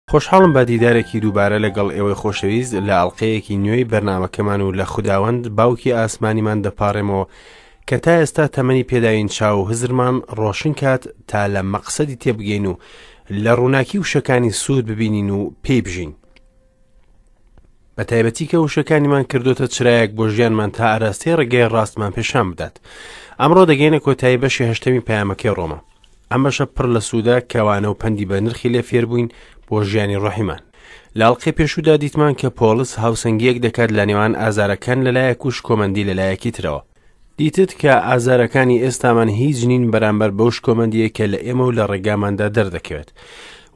خۆشحاڵم بە دیدارێکی دووبارە لەگەڵ ئێوەی خۆشەویست لە ئەڵلقەیەکی نوێی بەرنمەکەمان و لە خوداوەند باوکی ئاسمانیمان دەپارێمەوە کە تا ئێستا تەمەنی پێداوین چاو و هزرمان ڕۆشن کات تا لە مەقسەدی تێبگەین و لە ڕووناکی وشەکانی سوود ببینین و پێی بژین. بە تایبەتی کە وشەکانیمان کردوتە چرایەک بۆ ژیانمان تا ئاراستەی ڕێگەی ڕاستمان پێشان بدات ئەمڕۆ دەگەینە کۆتایی بەشی هەشتەمی پەیامەکەی ڕۆما ئەم بەشە پڕ لە سوودە کەوانە و پەندی بە نرخی لێ فێربووین بۆ ژیانی ڕۆحیمان لە ئەڵقەی پێشوودا دیتمان کە پۆڵس هاوسەنگیەک دەکات لە نێوان ئازارەکان لەلایەک و شکۆمەندی لەلایەکی ترەوە دیتت کە ئازارەکانی ئێستامان هیچ نین بەرامبەر بەو شکۆمەندیە کە لە ئێمە و لە ڕێگاماندا دەردەکەوێت.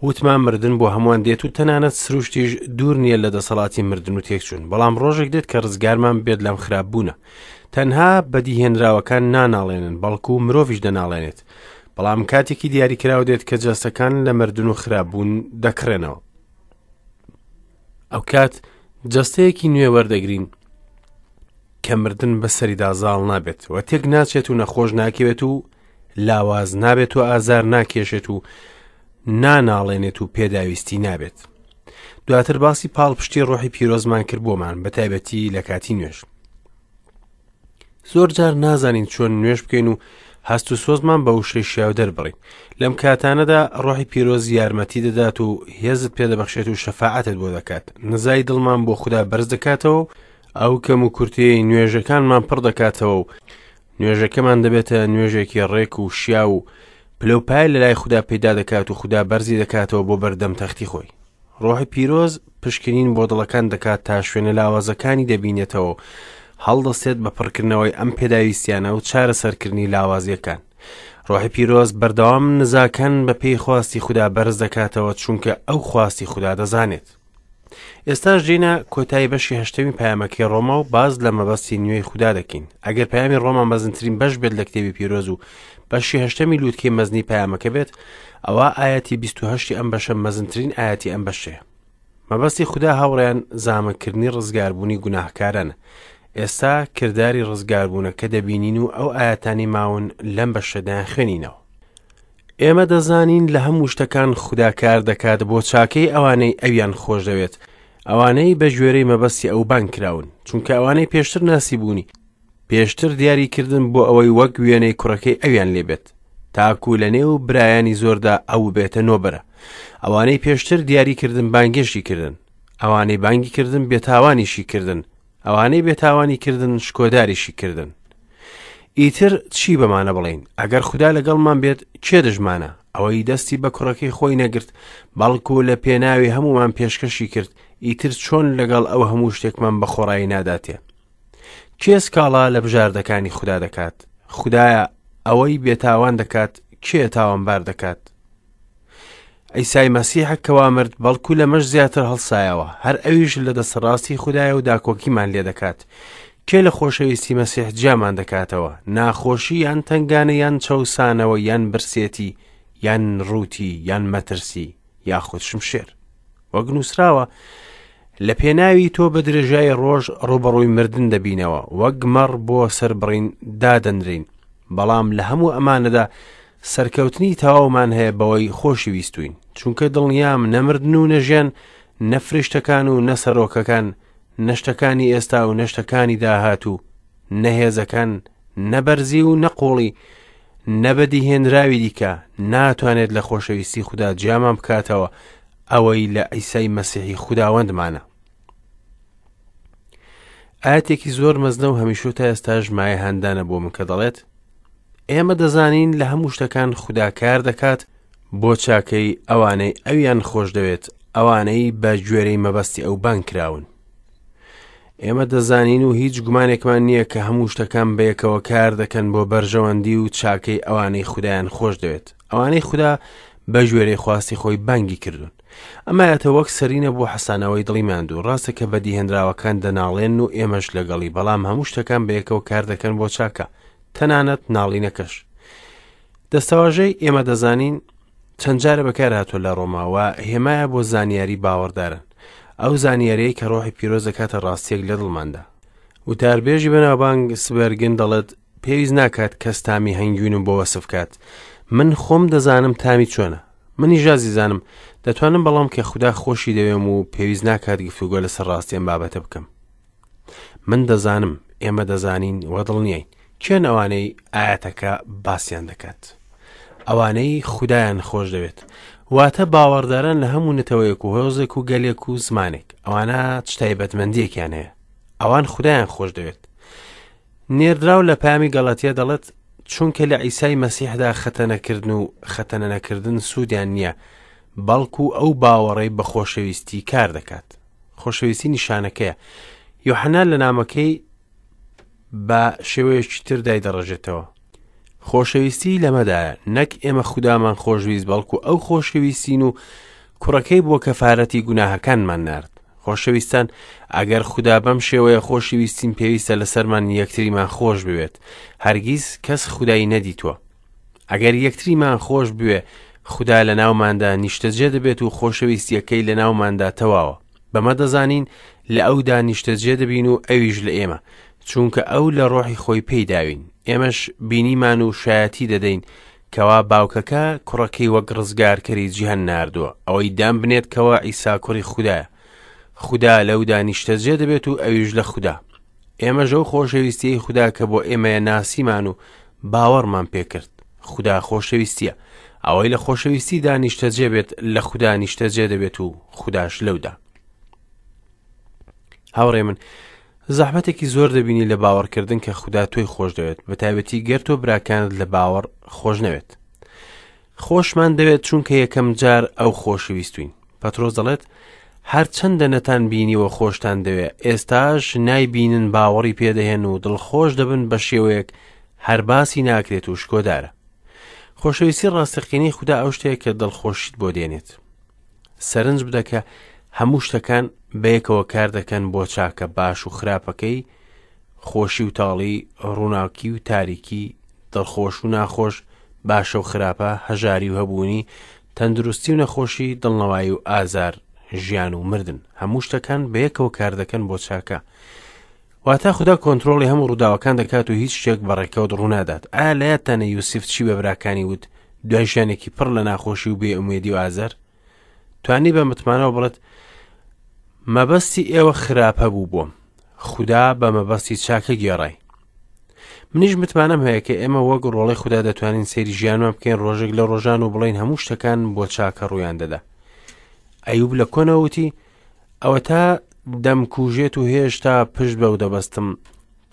وتمان مردن بۆ هەمووان دێت و تەنانەت سروشتیش دوور نییە لە دەسەڵاتی مردن و تێکچوون، بەڵام ڕۆژێک دێت کە ڕزگارمان بێت لەم خراپ بوونە. تەنها بەدیهێنراوەکان ناناڵێنن، بەڵکو مرۆڤیش دەناڵێنێت. بەڵام کاتێکی دیاریکراو دێت کە جەستەکان لە مردن و خراپ بوون دەکڕێنەوە. ئەوکات جەستەیەکی نوێ وەردەگرین کە مردن بەسەریدا زاڵ نابێت و تێک ناچێت و نەخۆش ناکەوێت و لاواز نابێت و ئازار ناکێشێت و ناناڵێنێت و پێداویستی نابێت دواتر باسی پاڵپشتی ڕۆحی پیرۆزمان کرد بۆمان بە تایبەتی لە کاتی نوێژ زۆر جار نازانین چۆن نوێژ بکەین و هەست و سۆزمان بە وشەی شیاو دەربڕین لەم کاتانەدا ڕۆحی پیرۆز یارمەتی دەدات و هێزت پێدەبەخشێت و شەفاعەتت بۆ دەکات نزای دڵمان بۆ خودا بەرز دەکاتەوە و ئەو کەم و کورتەیەی نوێژەکانمان پڕ دەکاتەوە و نوێژەکەمان دەبێتە نوێژێکی ڕێک و شیاو و پلەوپای لە لای خودا پەیدا دەکات و خودا بەرزی دەکاتەوە بۆ بەردەم تەختی خۆی ڕۆحی پیرۆز پشکنین بۆ دڵەکان دەکات تا شوێنە لاوازەکانی دەبینێتەوە و هەڵدەستێت بە پڕکردنەوەی ئەم پێداویستیانە و چارەسەرکردنی لاوازیەکان ڕۆحی پیرۆز بەردەوام نزاکان بە پێی خواستی خودا بەرز دەکاتەوە چونکە ئەو خواستی خودا دەزانێت ئێستاش دێینە کۆتایی بەشی هەشتەمی پەیامەکەی ڕۆما و باز لە مەبەستی نوێی خودا دەکەین ئەگەر پەیامی ڕۆما مەزنترین بەش بێت لە کتێبی پیرۆز و بەشی هەشتەمی لووتکەی مەزنی پەیامەکە بێت ئەوە ئاەتی 28 ئەم بەشە مەزنترین ئاەتی ئەم بەشەیە مەبەستی خودا هاوڕێیان زامنکردنی ڕزگاربوونی گوناهکارانە ئێستا کرداری ڕزگاربوونەکە دەبینین و ئەو ئاەتانی ماون لەم بەشەدایان خوێنینەوە ئێمە دەزانین لە هەموو شتەکان خودا کار دەکات بۆ چاکەی ئەوانەی ئەویان خۆشدەوێت، ئەوانەی بە گوێرەی مەبەستی ئەو بانگ کراون، چونکە ئەوانەی پێشتر ناسیبوونی، پێشتر دیاری کردن بۆ ئەوەی وەک وێنەی کوڕەکەی ئەویان لێبێت، تاکو لە نێو برایانی زۆردا ئەو ببێتە نۆبەرە. ئەوانەی پێشتر دیاری کردن بانگێشتی کردن، ئەوانەی بانگی کردن بێتاوانیشی کردن، ئەوانەی بێتاوانی کردن شکۆداریشی کردن. ئیتر چی بەمانە بڵێین؟ ئەگەر خودا لەگەڵمان بێت کێ دژمانە؟ ئەوەی دەستی بە کوڕەکەی خۆی نەگرت، بەڵکو لە پێناوی هەمومان پێشکەشی کرد، ئیتر چۆن لەگەڵ ئەو هەموو شتێکمان بە خۆڕایی ناداتێ؟ کێ سکاڵا لە بژاردەکانی خودا دەکات؟ خودایە ئەوەی بێتاوان دەکات، کێ تاوانبار دەکات؟ عیسای مەسیحە کەوا مرد بەڵکو لەمەش زیاتر هەڵسایەوە هەر ئەویش لە دەستڕاستی خودایە و داکۆکیمان لێ دەکات کێ لە خۆشەویستی مەسیح جیامان دەکاتەوە ناخۆشی یان تنگانە یان چەوسانەوە یان برسێتی یان ڕووتی یان مەترسی یاخود شمشێر وەک نووسراوە لە پێناوی تۆ بە درێژای ڕۆژ ڕوبەڕووی مردن دەبینەوە وەک مەڕ بۆ سەربڕین دادەنرین بەڵام لە هەموو ئەمانەدا سەرکەوتنی تەواومان هەیە بەوەی خۆشی ویستوین چونکە دڵنیام نە مردن و نە ژیان نە فریشتەکان و نە سەرۆکەکان نە شتەکانی ئێستا و نە شتەکانی داهاتوو نە هێزەکان نە بەرزی و نە قوڵی نە بەدیهێنراوی دیکە ناتوانێت لە خۆشەویستی خودا جیامان بکاتەوە ئەوەی لە عیسای مەسیحی خوداوەندمانە ئاەتێکی زۆر مەزنە و هەمیشە تا ئێستاش مایە هاندانە بۆ من کە دەڵێت ئێمە دەزانین لە هەموو شتەکان خودا کار دەکات بۆ چاکەی ئەوانەی ئەویان خۆش دەوێت ئەوانەی بە گوێرەی مەبەستی ئەو بانگ کراون ئێمە دەزانین و هیچ گومانێکمان نییە کە هەموو شتەکان بەیەکەوە کار دەکەن بۆ بەرژەوەندی و چاکەی ئەوانەی خودایان خۆش دەوێت ئەوانەی خودا بە گوێرەی خواستی خۆی بانگی کردوون ئەمایەتە وەک سەرینە بۆ حەسانەوەی دڵی ماندوو ڕاستە کە بەدیهێنراوەکان دەناڵێن و ئێمەش لەگەڵی بەڵام هەموو شتەکان بەیەکەوە کار دەکەن بۆ چاکە تەنانەت ناڵینەکەش دەستەواژەی ئێمە دەزانین چەند جارە بەکار هاتووە لە ڕۆماوە هێمایە بۆ زانیاری باوەڕدارن ئەو زانیاریەی کە ڕۆحی پیرۆز دەکاتە ڕاستیەک لە دڵماندا وتاربێژی بەناوبانگ سبەرگن دەڵێت پێویست ناکات کەس تامی هەنگوینم بۆ وەسف کات من خۆم دەزانم تامی چۆنە. منیش ئازیزانم دەتوانم بەڵام کە خودا خۆشی دەوێم و پێویست ناکات گفتوگۆ لەسەر ڕاستی ئەم بابەتە بکەم. من دەزانم، ئێمە دەزانین و دڵنیاین. کێن ئەوانەی ئایەتەکە باسیان دەکات؟ ئەوانەی خودایان خۆش دەوێت. واتە باوەڕداران لە هەموو نەتەوەیەک و هۆزێک و گەلێک و زمانێک. ئەوانە چ تایبەتمەندیەکیان هەیە؟ ئەوان خودایان خۆش دەوێت. نێردراو لە پامی گەڵەتیە دەڵێت چونکە لە عیسای مەسیحدا خەتەنەکردن و خەتەنە نەکردن سوودیان نییە، بەڵکو ئەو باوەڕەی بە خۆشەویستی کار دەکات. خۆشەویستی نیشانەکەیە. یۆحەنا لە نامەکەی بە شێوەیەکی تر دایدەڕێژێتەوە. خۆشەویستی لەمەدایە، نەک ئێمە خودامان خۆشویست بەڵکو ئەو خۆشەویستین و کوڕەکەی بۆ کەفارەتی گوناهەکانمان نارد. خۆشەویستان ئەگەر خودا بەم شێوەیە خۆشیویستین پێویستە لەسەرمان یەکتریمان خۆش بوێت. هەرگیز کەس خودای نەدیتووە. ئەگەر یەکتریمان خۆش بوێ خودا لە ناوماندا نیشتەجێ دەبێت و خۆشەویستیەکەی لە ناوماندا تەواوە. بەمە دەزانین لە ئەودا نیشتەجێ دەبین و ئەویش لە ئێمە، چونکە ئەو لە ڕۆحی خۆی پێی داوین. ئێمەش بینیمان و شایەتی دەدەین کەوا باوکەکە کوڕەکەی وەک ڕزگارکەری جیهان ناردووە، ئەوەی دان بنێت کەوا عیسا کوڕی خودایە. خودا لەودا نیشتەجێ دەبێت و ئەویش لە خودا. ئێمەش ئەو خۆشەویستیەی خودا کە بۆ ئێمەیە ناسیمان و باوەڕمان پێکرد. خودا خۆشەویستیە. ئەوەی لە خۆشەویستیدا نیشتەجێ بێت لە خودا نیشتەجێ دەبێت و خوداش لەودا. هاوڕێ من زەحمەتێکی زۆر دەبینی لە باوەڕکردن کە خودا تۆی خۆش دەوێت بە تایبەتی گەر تۆ براکانت لە باوەڕ خۆش نەوێت. خۆشمان دەوێت چونکە یەکەم جار ئەو خۆشویستوین. پەترۆس دەڵێت هەرچەندە نەتان بینیوە خۆشتان دەوێ ئێستاش نایبینن باوەڕی پێدەهێن و دڵخۆش دەبن بە شێوەیەک هەر باسی ناکرێت و شکۆدارە. خۆشەویستی ڕاستەقینەی خودا ئەو شتەیە کە دڵخۆشیت بۆ دێنێت. سەرنج بدە کە هەموو شتەکان بەیەکەوە کار دەکەن بۆ چاکە باش و خراپەکەی، خۆشی و تاڵی، ڕووناکی و تاریکی، دڵخۆش و ناخۆش، باشە و خراپە، هەژاری و هەبوونی، تەندروستی و نەخۆشی، دڵنەوایی و ئازار، ژیان و مردن. هەموو شتەکان بەیەکەوە کار دەکەن بۆ چاکە. واتە خودا کۆنترۆڵی هەموو ڕووداوەکان دەکات و هیچ شتێک بە ڕێکەوت ڕوونادات. ئایا لە یادتانە یوسف چی بە براکانی وت دوای ژیانێکی پڕ لە ناخۆشی و بێئومێدی و ئازار؟ توانی بە متمانەوە بڵێت مەبەستی ئێوە خراپە بوو بۆم خودا بە مەبەستی چاکە گێڕای منیش متمانەم هەیە کە ئێمە وەک ڕۆڵی خودا دەتوانین سەیری ژیانمان بکەین ڕۆژێک لە ڕۆژان و بڵین هەموو شتەکان بۆ چاکە ڕوویان دەدا ئەیوب لە کۆنەوە وتی ئەوەتا دەمکوژێت و هێشتا پشت بەو دەبەستم،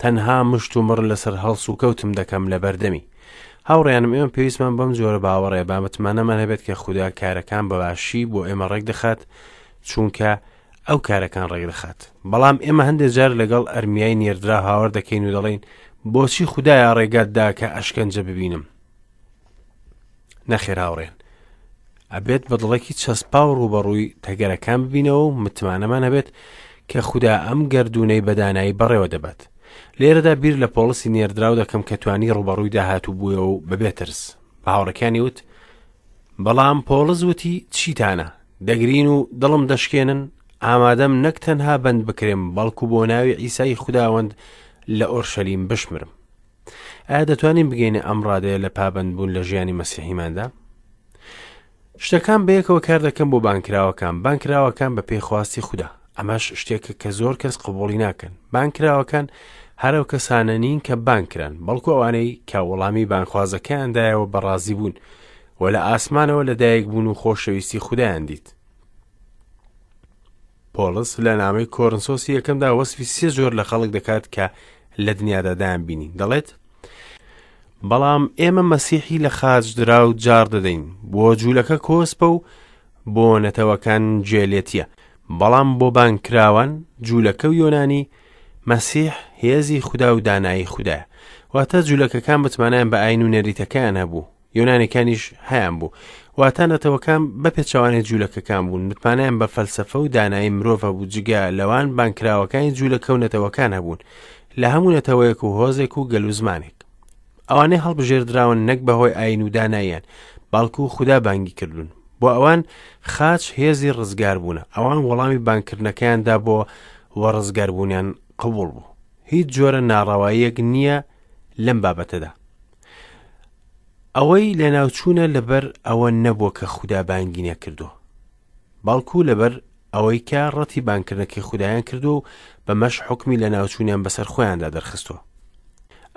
تەنها مشت و مڕ لەسەر هەڵس و کەوتم دەکەم لە بەردەمی. هاوڕێیانم ئێمە پێویستمان بەم جۆرە باوەڕەیە با متمانەمان هەبێت کە خودا کارەکان بە باشی بۆ ئێمە ڕێکدەخات چونکە ئەو کارەکان ڕێکدەخات. بەڵام ئێمە هەندێک جار لەگەڵ ئەرمیای نێردرا هاوار دەکەین و دەڵێین بۆچی خودایە ڕێگات دا کە ئەشکەنجە ببینم؟ نەخێر هاوڕێن ئەبێت بە دڵێکی چەسپاو ڕووبەڕووی تەگەرەکان ببینەوە و متمانەمان هەبێت کە خودا ئەم گەردوونەی بەدانایی بەڕێوە دەبات لێرەدا بیر لە پۆڵسی نێردراو دەکەم کە توانی ڕووبەڕووی داهاتوو بوویەوە و بەبێ ترس بە هاوڕەکانی وت بەڵام پۆڵس وتی چیتانە دەگرین و دڵم دەشکێنن ئامادەم نەک تەنها بەند بکرێم بەڵکو بۆ ناوی عیسای خوداوەند لە ئۆرشەلیم بشمرم ئایا دەتوانین بگەینە ئەم ڕادەیە لە پابەندبوون لە ژیانی مەسیحیماندا؟ شتەکان بەیەکەوە کار دەکەن بۆ بانکراوەکان بانکراوەکان بە پێی خواستی خودا ئەمەش شتێکە کە زۆر کەس قبوڵی ناکەن بانکراوەکان هەرەو کەسانە نین کە بانکران بەڵکو ئەوانەی کە وەڵامی بانخوازەکەیان دایەوە بەڕازی بوون و لە ئاسمانەوە لەدایک بوون و خۆشەویستی خودایان دیت پۆڵس لە نامەی کۆرنسۆسی یەکەمدا وەسفی سێ جۆر لە خەڵک دەکات کە لە دنیادا دایان بینی دەڵێت بەڵام ئێمە مەسیحی لە خاچ درا و جار دەدەین بۆ جوولەکە کۆسپە و بۆ نەتەوەکان جێلێتیە بەڵام بۆ بانکراوان جوولەکە و یۆنانی مەسیح هێزی خودا و دانایی خودایە واتە جوولەکەکان متمانیان بە ئاین و نەریتەکەیان هەبوو یۆنانیەکانیش هەیان بوو واتە نەتەوەکان بە پێچەوانەی جوولەکەکان بوون متمانەیان بە فەلسەفە و دانایی مرۆڤ هەبوو جگە لەوان بانکراوەکانی جوولەکە و نەتەوەکان هەبوون لە هەموو نەتەوەیەک و هۆزێک و گەل و زمانێک ئەوانەی هەڵبژێردراون نەک بەهۆی ئاین و داناییان بەڵکو خودا بانگی کردوون بۆ ئەوان خاچ هێزی ڕزگار بوونە ئەوان وەڵامی بانکردنەکەیان دابۆ و ڕزگاربوونیان قبوڵ بوو هیچ جۆرە ناڕەواییەک نییە لەم بابەتەدا. ئەوەی لەناوچوونە لەبەر ئەوە نەبووە کە خودا بانگی نەکردووە، بەڵکو لەبەر ئەوەی کە ڕەتی بانگکردنەکەی خودایان کردووە و بەمەش حوکمی لەناوچوونیان بەسەر خۆیاندا دەرخستووە.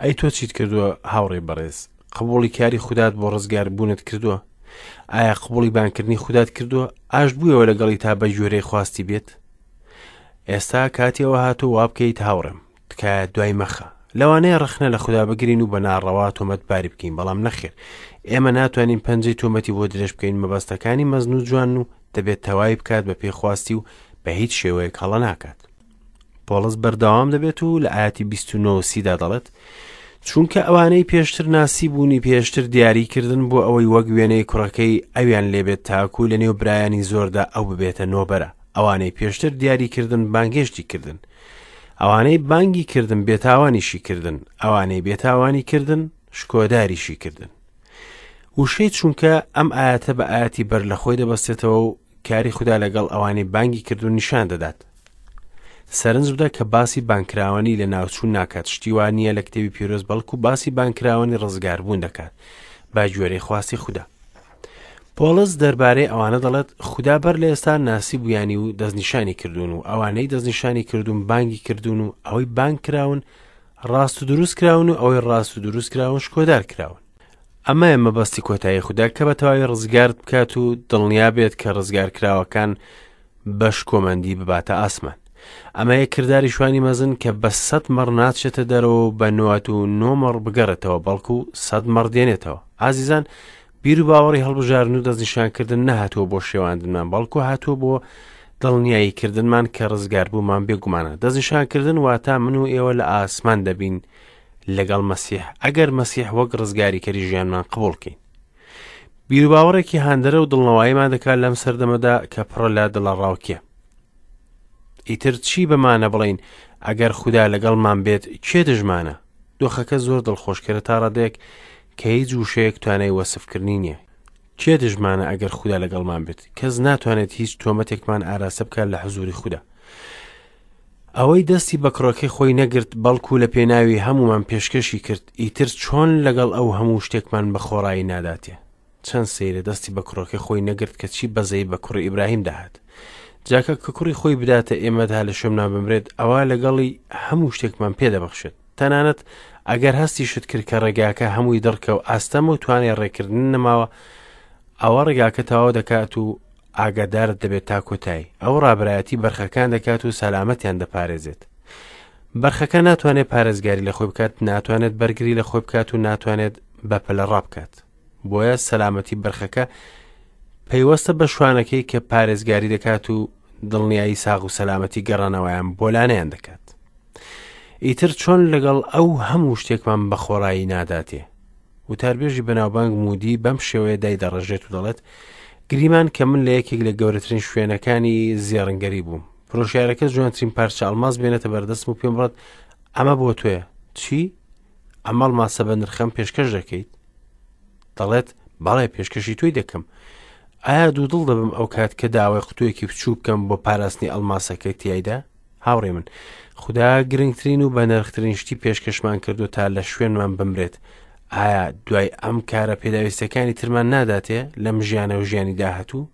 ئەی تۆ چیت کردووە هاوڕێی بەڕێز؟ قبوڵی کاری خودات بۆ ڕزگاربوونت کردووە؟ ئایا قبوڵی بانگکردنی خودات کردووە؟ ئاشت بوویەوە لەگەڵی تا بە گوێرەی خواستی بێت؟ ئێستا کاتی ئەوە هاتووە وا بکەیت هاوڕێم. تکایە دوای مەخە. لەوانەیە ڕەخنە لە خودا بگرین و بە ناڕەوا تۆمەتباری بکەین، بەڵام نەخێر، ئێمە ناتوانین پەنجەی تۆمەتی بۆ درێژ بکەین، مەبەستەکانی مەزن و جوانن و دەبێت تەواوی بکات بە پێی خواستی و بە هیچ شێوەیەک هەڵە ناکات. پۆڵس بەردەوام دەبێت و لە ئاەتی 29 سیدا دەڵێت چونکە ئەوانەی پێشتر ناسی بوونی پێشتر دیاری کردن بۆ ئەوەی وەک وێنەی کوڕەکەی ئەویان لێبێت تاکو لە نێو برایانی زۆردا ئەو ببێتە نۆبەرە ئەوانەی پێشتر دیاری کردن بانگێشتی کردن ئەوانەی بانگی کردن بێتاوانیشی کردن، ئەوانەی بێتاوانی کردن شکۆداریشی کردن. وشەی چونکە ئەم ئاەتە بە ئاەتی بەر لە خۆی دەبەستێتەوە و کاری خودا لەگەڵ ئەوانەی بانگی کردو نیشان دەدات. سەرنج بدە کە باسی بانکراوانی لە ناوچوون ناکات شتی وا نییە لە کتێبی پیرۆز بەڵکو باسی بانکراوانی ڕزگاربوون دەکات با گوێرەی خواستی خودا. پۆڵس دەربارەی ئەوانە دەڵێت، خودا بەر لە ئێستا ناسیبوویانی و دەستنیشانی کردوون و ئەوانەی دەستنیشانی کردوون بانگی کردوون و ئەوەی بانگ کراون ڕاست و دروست کراون و ئەوەی ڕاست و دروست کراون شکۆدار کراون. ئەمەیە مەبەستی کۆتایی خودا کە بە تەواوی ڕزگارت بکات و دڵنیا بێت کە ڕزگارکراوەکان بە شکۆمەندی بباتە ئاسمان. ئەمەیە کرداری شوانی مەزن کە بە سەد مەڕ ناچێتە دەرەوە و بە 99 مەڕ بگەڕێتەوە بەڵکو سەد مەڕ دێنێتەوە. ئازیزان بیر و باوەڕی هەڵبژاردن و دەستنیشانکردن نەهاتووە بۆ شێواندنمان بەڵکو هاتووە بۆ دڵنیایی کردنمان کە ڕزگاربوومان بێگومانە. دەستنیشانکردن واتا من و ئێوە لە ئاسمان دەبین لەگەڵ مەسیح ئەگەر مەسیح وەک ڕزگاریکەری ژیانمان قبوڵ کەین. بیروباوەڕێکی هاندەرە و دڵنەواییمان دەکات لەم سەردەمەدا کە پڕە لە دڵەڕاوکێ. ئیتر چی بەمانە بڵێین ئەگەر خودا لەگەڵمان بێت کێ دژمانە؟ دۆخەکە زۆر دڵخۆشکەرە تا ڕادەیەک کە هیچ وشەیەک توانای وەسفکردنی نییە. کێ دژمانە ئەگەر خودا لەگەڵمان بێت؟ کەس ناتوانێت هیچ تۆمەتێکمان ئاراستە بکات لە حزوری خودا. ئەوەی دەستی بە کوڕەکەی خۆی نەگرت، بەڵکو لە پێناوی هەموومان پێشکەشی کرد، ئیتر چۆن لەگەڵ ئەو هەموو شتێکمان بە خۆڕایی ناداتێ؟ چەند سەیرە دەستی بە کوڕەکەی خۆی نەگرت کە چی بەزەیی بە کوڕی ئیبراهیم داهات. جاکە کە کوڕی خۆی بداتە ئێمە تا لە شوێنمان بمرێت، ئەوا لەگەڵی هەموو شتێکمان پێ دەبەخشێت. تەنانەت ئەگەر هەستیشت کرد کە ڕێگاکە هەمووی دڕکە و ئاستەمە و توانای ڕێکردن نەماوە، ئەوە ڕێگاکە تەواو دەکات و ئاگادارت دەبێت تا کۆتایی. ئەو ڕابەرایەتی بەرخەکان دەکات و سەلامەتیان دەپارێزێت. بەرخەکە ناتوانێت پارێزگاری لە خۆی بکات، ناتوانێت بەرگری لە خۆی بکات و ناتوانێت بەپەلە ڕابکات. بۆیە سەلامەتی بەرخەکە پەیوەستە بە شوانەکەی کە پارێزگاری دەکات و دڵنیایی ساغ و سەلامەتی گەڕانەوەیان بۆ لانەیان دەکات. ئیتر چۆن لەگەڵ ئەو هەموو شتێکمان بە خۆڕایی ناداتێ؟ وتاربێژی بەناوبانگ مودی بەم شێوەیە دایدەڕێژێت و دەڵێت، گریمان کە من لە یەکێک لە گەورەترین شوێنەکانی زێڕنگەری بووم. فرۆشیارەکە جوانترین پارچە ئەڵماس بێنێتە بەردەستم و پێم بڵێت ئەمە بۆ تۆیە. چی؟ ئەم ئەڵماسە بە نرخەم پێشکەش دەکەیت؟ دەڵێت بەڵێ پێشکەشی تۆی دەکەم. ئایا دوودڵ دەبم ئەو کات کە داوای قوتوویەکی بچووک بکەم بۆ پاراستنی ئەڵماسەکەی تیایدا؟ هاوڕێ من، خودا گرنگترین و بەنرخترین شتی پێشکەشمان کردو تا لە شوێنمان بمرێت، ئایا دوای ئەم کارە پێداویستەکانی ترمان ناداتێ لەم ژیانە و ژیانی داهاتوو؟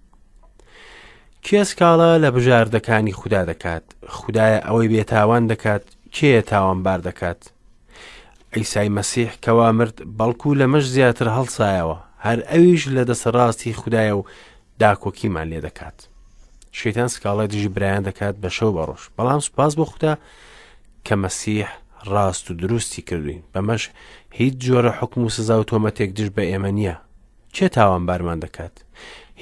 کێ سکاڵا لە بژاردەکانی خودا دەکات؟ خودایە ئەوەی بێتاوان دەکات، کێیە تاوانبار دەکات؟ عیسای مەسیح کەوا مرد بەڵکو لەمەش زیاتر هەڵسایەوە، هەر ئەویش لە دەسەڕاستی خودایە و داکۆکیمان لێ دەکات. شەیتان سکاڵای دژی برایان دەکات بە شەو بە ڕۆژ، بەڵام سوپاس بۆ خودا کە مەسیح ڕاست و دروستی کردوین، بەمەش هیچ جۆرە حوکم و سزا و تۆمەتێک دژ بە ئێمە نییە. کێ تاوانبارمان دەکات؟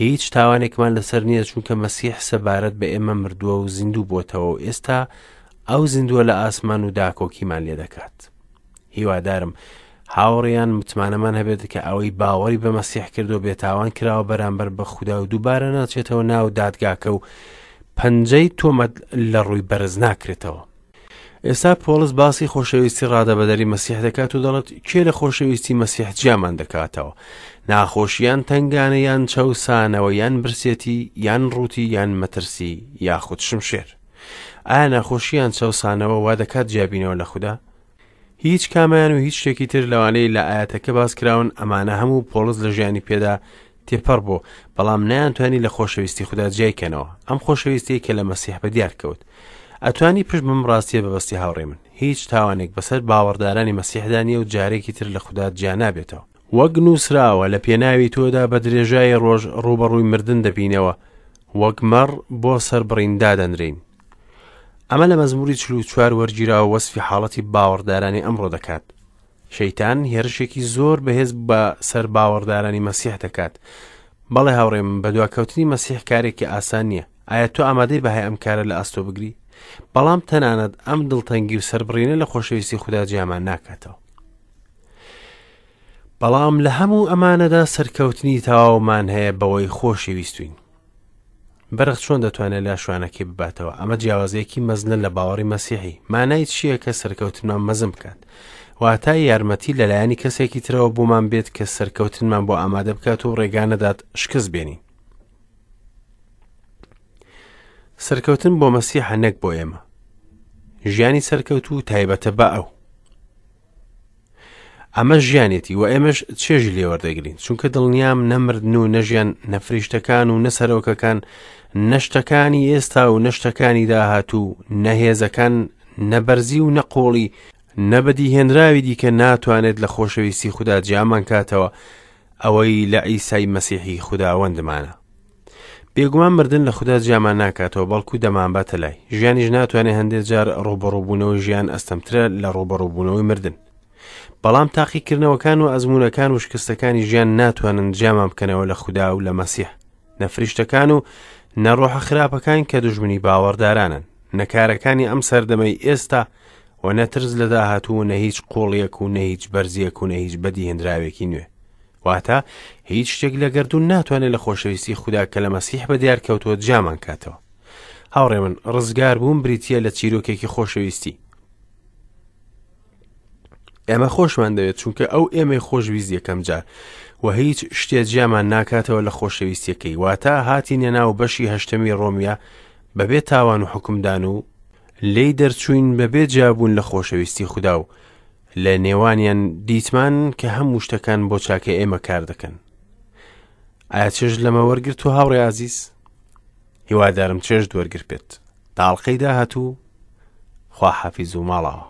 هیچ تاوانێکمان لەسەر نییە چونکە مەسیح سەبارەت بە ئێمە مردووە و زیندوو بۆتەوە و ئێستا ئەو زیندووە لە ئاسمان و داکۆکیمان لێ دەکات. هیوادارم هاوڕێیان متمانەمان هەبێت کە ئەوەی باوەڕی بە مەسیح کردو بێتاوان کراوە بەرامبەر بە خودا و دووبارە ناچێتەوە ناو دادگاکە و پەنجەی تۆمەت لە ڕووی بەرز ناکرێتەوە. ئێستا پۆڵس باسی خۆشەویستی ڕادەبەدەری مەسیح دەکات و دەڵێت کێ لە خۆشەویستی مەسیح جیامان دەکاتەوە؟ ناخۆشیان تەنگانە یان چەوسانەوە یان برسێتی یان ڕووتی یان مەترسی یاخود شمشێر؟ ئایا ناخۆشیان چەوسانەوە وا دەکات جیابینەوە لە خودا؟ هیچ کامیان و هیچ شتێکی تر لەوانەی لە ئاەتەکە باس کراون، ئەمانە هەموو پۆڵس لە ژیانی پێدا تێپەڕ بوو، بەڵام نەیانتوانی لە خۆشەویستی خودا جیای کەنەوە، ئەم خۆشەویستیەی کە لە مەسیح بە دیار کەوت. ئەتوانی پشت بەم ڕاستیە ببەستی هاوڕێی من، هیچ تاوانێک بەسەر باوەڕدارانی مەسیحدا نییە و جارێکی تر لە خودا جیا نابێتەوە. وەک نووسراوە، لە پێناوی تۆدا بە درێژایی ڕۆژ ڕووبەڕووی مردن دەبینەوە، وەک مەڕ بۆ سەربڕین دادەنرێین. ئەمە لە مەزموری 44 وەرگیراوە وەسفی حاڵەتی باوەڕدارانی ئەمڕۆ دەکات. شەیتان هێرشێکی زۆر بەهێز بە سەر باوەڕدارانی مەسیح دەکات. بەڵێ هاوڕێ من، بەدواکەوتنی مەسیح کارێکی ئاسان نییە. ئایا تۆ ئامادەی بەهای ئەم کارە لە ئەستۆ بگری؟ بەڵام تەنانەت ئەم دڵتەنگی و سەربڕینە لە خۆشەویستی خودا جیامان ناکاتەوە. بەڵام لە هەموو ئەمانەدا سەرکەوتنی تەواومان هەیە بەوەی خۆشی ویستوین. بەرخ چۆن دەتوانێت لە شوانەکەی بباتەوە؟ ئەمە جیاوازیەکی مەزنە لە باوەڕی مەسیحی. مانای چییە کە سەرکەوتنمان مەزن بکات؟ واتە یارمەتی لەلایەنی کەسێکی ترەوە بۆمان بێت کە سەرکەوتنمان بۆ ئامادە بکات و ڕێگا نەدات شکست بێنین. سەرکەوتن بۆ مەسیحە نەک بۆ ئێمە. ژیانی سەرکەوتوو تایبەتە بە ئەو. ئەمە ژیانێتی و ئێمەش چێژی لێوەردەگرین چونکە دڵنیام نەمردن و نەژیان نەفریشتەکان و نەسەرۆکەکان نەشتەکانی ئێستا و نەشتەکانی داهاتوو نەهێزەکان نەبەرزی و نەقۆڵی نەبەدیهێنراوی دیکە ناتوانێت لە خۆشەویستی خودا جیامان کاتەوە ئەوەی لە عیسای مەسیحی خوداوەندمانە. بێگومان مردن لە خودا جیامان ناکاتەوە بەڵکو دەمانباتە لای. ژیانیش ناتوانێت هەندێک جار ڕووبەڕووبوونەوەی ژیان ئەستەمترە لە ڕووبەڕووبوونەوەی مردن. بەڵام تاقیکردنەوەکان و ئەزموونەکان و شکستەکانی ژیان ناتوانن جیامان بکەنەوە لە خودا و لە مەسیح. نە فریشتەکان و نە ڕۆحە خراپەکان کە دوژمنی باوەڕدارانن، نە کارەکانی ئەم سەردەمەی ئێستا و نە ترس لە داهاتوو و نە هیچ قوڵیەک و نە هیچ بەرزیەک و نە هیچ بەدیهێنراوێکی نوێ. واتە هیچ شتێک لە گەردوون ناتوانێت لە خۆشەویستی خودا کە لە مەسیح بە دیار کەوتووە جیامان کاتەوە. هاوڕێ من، ڕزگار بوون بریتییە لە چیرۆکێکی خۆشەویستی. ئێمە خۆشمان دەوێت چونکە ئەو ئێمەی خۆشویست یەکەم جار و هیچ شتێ جیامان ناکاتەوە لە خۆشەویستیەکەی واتە هاتینە ناو بەشی هەشتەمی ڕۆمیە بەبێ تاوان و حکومدان و لێی دەرچوین بەبێ جیابوون لە خۆشەویستی خودا و لە نێوانیان دیتمان کە هەموو شتەکان بۆ چاکە ئێمە کار دەکەن. ئایا چێژ لەمە وەرگرت و هاوڕێ ئازیز؟ هیوادارم چێژت وەرگرت بێت. تا ئەڵقەی داهاتوو خواحافیز و ماڵاوە.